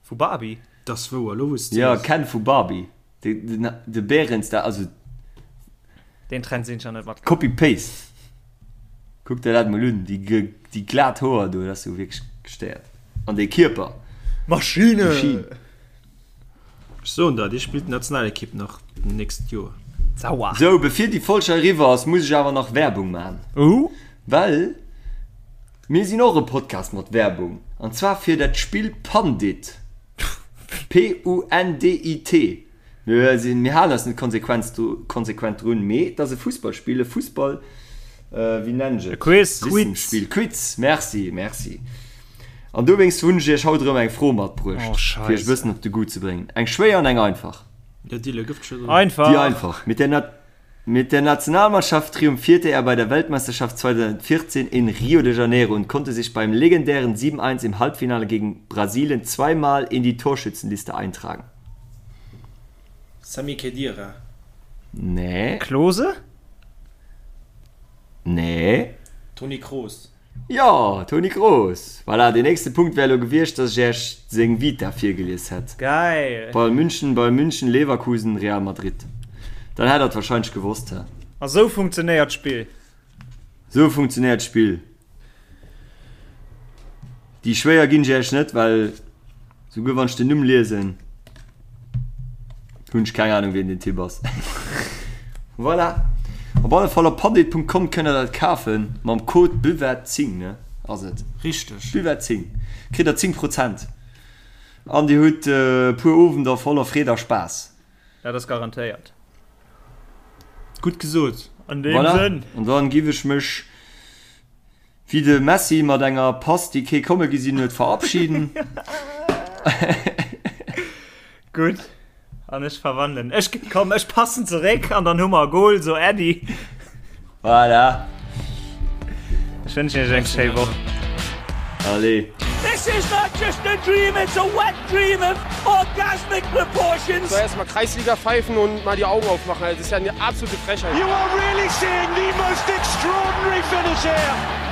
Speaker 4: Vu Barbie?
Speaker 5: Dat ass wouer, elo wou s de
Speaker 3: Ja,
Speaker 5: sees.
Speaker 3: Ken vu Barbie. De, de, de Behrens, da, also
Speaker 4: Deen Trend sinn ech nach net matgaangen.
Speaker 3: Copy-Paste. Kuck der dat mol un, déi, déi glat Hoer do, dat ass jo wierklech gestéiert. An dee Kierper.
Speaker 4: Maschine!
Speaker 3: Maschine.
Speaker 5: Ech soen der, dee spillt d'Nationalekipp nach d'nächst Joer.
Speaker 4: Sauer.
Speaker 3: Sou, bevir déi Folg hei eriwwer ass, muss ech awer nach Werbung maachen.
Speaker 4: Oh.
Speaker 3: Well mir sinn och e Podcast mat Werbung, an zwar fir dat Spill Pandit. P-U-N-D-I-T. Mir sinn, mir halen eis net konsequenz, konsequent drun, mee et ass e Fussballspill, e Fussball, wéi nennen ech et?
Speaker 4: E Quiz.
Speaker 3: Wissenspill, Quiz, merci, merci. An dowéinst hunn ech iech haut erëm eng Fro matbruecht,
Speaker 4: Oh,
Speaker 3: fir iech e
Speaker 4: Scheisse.
Speaker 3: bëssen op de Goût ze bréngen. Eng schwéier an eng einfach.
Speaker 5: Ja, Dille, gëff d'Schëss un.
Speaker 4: Einfach.
Speaker 3: Déi einfach, mit der nat. Mit der Nationalmannschaft triumphierte er bei der Weltmeisterschaft 2014 in Rio de Janeiro und konnte sich beim legendären 7-1 im Halbfinale gegen Brasilien zweimal in die Torschützenliste eintragen.
Speaker 5: Sami Khedira.
Speaker 3: Nee.
Speaker 4: Klose?
Speaker 3: Nee.
Speaker 5: Toni Kroos.
Speaker 3: Jo, Toni Kroos. Voilà, deen nächste Punkt wär elo gewiescht, dass ech Iech seng Vita virgelies hätt.
Speaker 4: Geil!
Speaker 3: Bayern München, Bayern München, Leverkusen, Real Madrid. Dann hätt der et wahrscheinlech gewosst, hä?
Speaker 4: A sou funktionéiert d'Spill.
Speaker 3: Sou funktionéiert d'Spill. Déi schwéier ginn ech Iech net, well souguer wann ech den Numm liesen, hunn ech keng Ahnung wien den Typ ass. Voilà. Op alle Fall op pandit.com kënnt der dat kafen mam Code Buvette10, ne ass et?
Speaker 5: Richteg.
Speaker 3: Buvette10 kritt der 10 Prozent an dir hutt e puer Owender voller Freed a Spaass.
Speaker 4: Dat ass garantéiert.
Speaker 5: Gutt gesot.
Speaker 4: An deem
Speaker 3: Voilà.
Speaker 4: Sënn.
Speaker 3: An dann giff ech mech wéi de Messi mat enger Pass déi kee komme gesinn huet verabschieden.
Speaker 4: Gutt, an ech verwandelen. Ech, komm, ech passen zeréck an dann hu mer e Goal, so Äddi.
Speaker 3: Voilà.
Speaker 4: Ech wënschen iech eng schéi Woch.
Speaker 3: Allez.
Speaker 1: This is not just a dream, it's a wet dream of orgasmic proportions.
Speaker 2: So erstmal Kreisliga pfeifen und mal die Augen aufmachen. Das ist ja eine absolute Frechheit.
Speaker 1: You are really seeing the most extraordinary finish here.